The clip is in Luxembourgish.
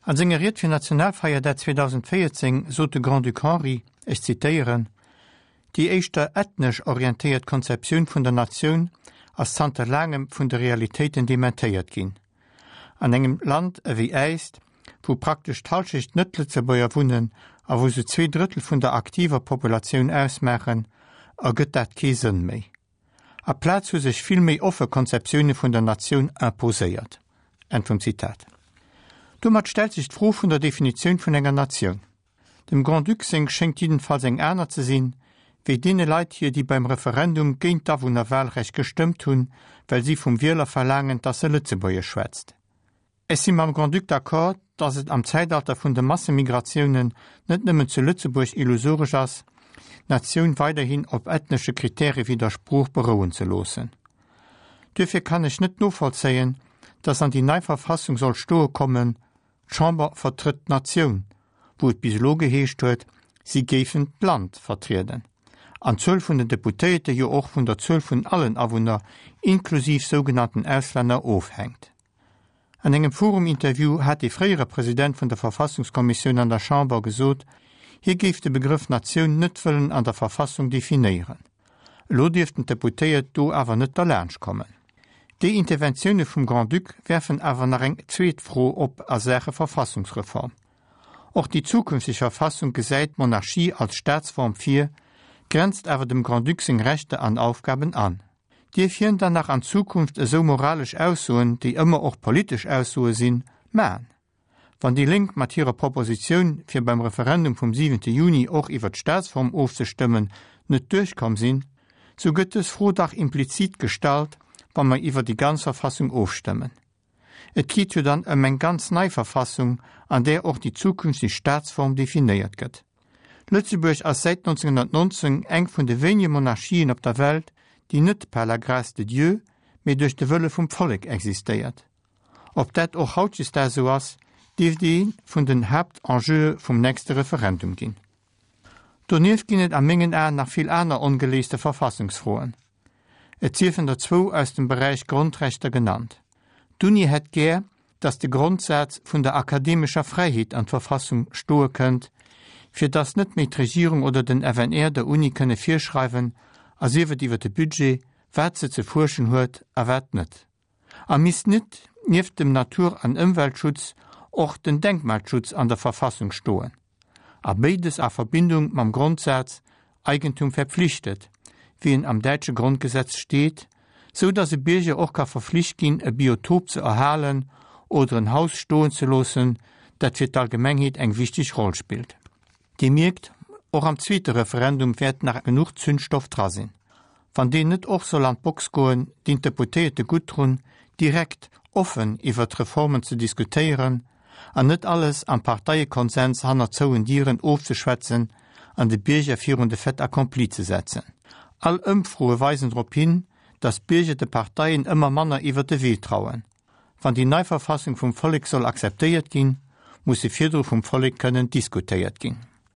An senger Ried fir Nationalfeierdag 2014 sot de Grand-Duc Henri, ech zitéieren, Déi éischter ethnesch orientéiert Konzeptioun vun der Natioun ass zanter laangem vun de Realitéiten dementéiert ginn. An engem Land ewéi äist, wou praktesch d'Hallschecht Net-Lëtzebuerger wunnen a wou se 2/3 vun der aktiver Populatioun ausmaachen, ergëtt dat kee Sënn méi. Aplaz hu sech vill méi offe Konzeptioune vun der Natioun imposéiert. Enn vum Zitat. Domat stellt sech d'Fro vun der Definitioun vun enger Natioun. Dem Grand-Duc seng schéngt jiddenfalls eng aner ze sinn, wéi deene Leit hir, déi beim Referendum géint d'Awunnerwahlrecht gestëmmt hunn, well si vum Wieler verlaangen, dass e Lëtzebuergesch schwätzt. Ech si mam Grand-Duc d'accord, dass et am Zäitalter vun de Massemigratiounen net nëmmen zu Lëtzebuerg illusoresch ass, d'Natioun weiderhin op ethnesche Kritäre wéi der Sprooch berouen ze loossen. Duerfir kann ech net novollzéien, dass an déi nei Verfassung soll stoe kommen, D'Chamber vertrëtt d'Natioun, wou et bis elo geheescht huet, si géifen d'Land vertrieden, an d'Zuel vun den Deputéierte jo och vun der Zuel vun allen Awunner, inklusiv sougenannten Auslänner, ofhänkt. An engem forum-Interview hat dee fréiere President vun der Verfassungskommissioun an der Chamber gesot, hie géif de Begrëff Natioun net wëllen an der Verfassung definéieren. Elo dierften d'Deputéiert do awer net derlaanscht kommen. Déi Interventioune vum Grand-Duc werfen awer nach eng zweet Fro op a Saache Verfassungsreform. Och déi zukünfteg Verfassung gesäit d'Monarchie als Staatsform vir, grenzt awer dem Grand-Duc seng Rechter an Aufgaben an. Dierf hien dann nach an Zukunft esou moralesch Aussoen, déi ëmmer och politesch Aussoe sinn, man? Wann déi Lénk mat hirer Propositioun, fir beim Referendum vum siwente Juni och iwwer d'Staatsform ofzestëmmen, net duerchkomm sinn, sou gëtt dës Fro dach implizit gestallt, wa mer iwwer déi ganz Verfassung ofstëmmen. Et geet jo dann ëm eng ganz nei Verfassung, an där och déi zukünfteg Staatsform definéiert gëtt. Lëtzebuerg ass säit 1919 eng vun de wéinege Monarchien op der Welt, déi net par la grâce de Dieu, mee duerch de Wëlle vum Vollek existéiert. Ob dat och hautdesdaags esou ass, dierft ee vun den Haaptenjeue vum nächste Referendum ginn. Donieft ginn et a mengen Aen nach vill aner ongeléiste Verfassungsfroen. Et siefen der zwou aus dem Beräich Grondrechter genannt. D'Uni hätt gär, datt de Grondsaz vun der akademescher Fräiheet an d'Verfassung stoe kënnt, fir datt net méi d'Regierung oder den FNR der Uni kënne virschreiwen, a sief et iwwer de Budget, wat se ze fuerschen huet a wat net. A misst net nieft dem Natur an Ëmweltschutz och den Denkmalschutz an der Verfassung stoen? A béides a Verbindung mam Grondsaz Eigentum verpflichtet, wéi en am däitsche Grondgesetz steet, sou datt e Bierger och ka verflicht ginn e Biotop ze erhalen oder en Haus stoen ze loossen, dat fir d'Allgemengheet eng wichteg Roll spillt. Dir mierkt, och am zweete Referendum wäert nach genuch Zündstoff dra sinn. Wann deen net och soll an d'Box goen, dinn d'Deputéierte gutt drun, direkt, offen iwwert d'Reformen ze diskutéieren an net alles am Parteiekonsens hanner zouen Dieren ofzeschwätzen an de Bierger virun de Fait accompli ze setzen. All Ëmfroe weisen drop hin, datt d'Bierger de Parteien ëmmer manner iwwert de Wee trauen. Wann déi nei Verfassung vum Vollek soll akzeptéiert ginn, muss se virdru vum Vollek kënnen diskutéiert ginn.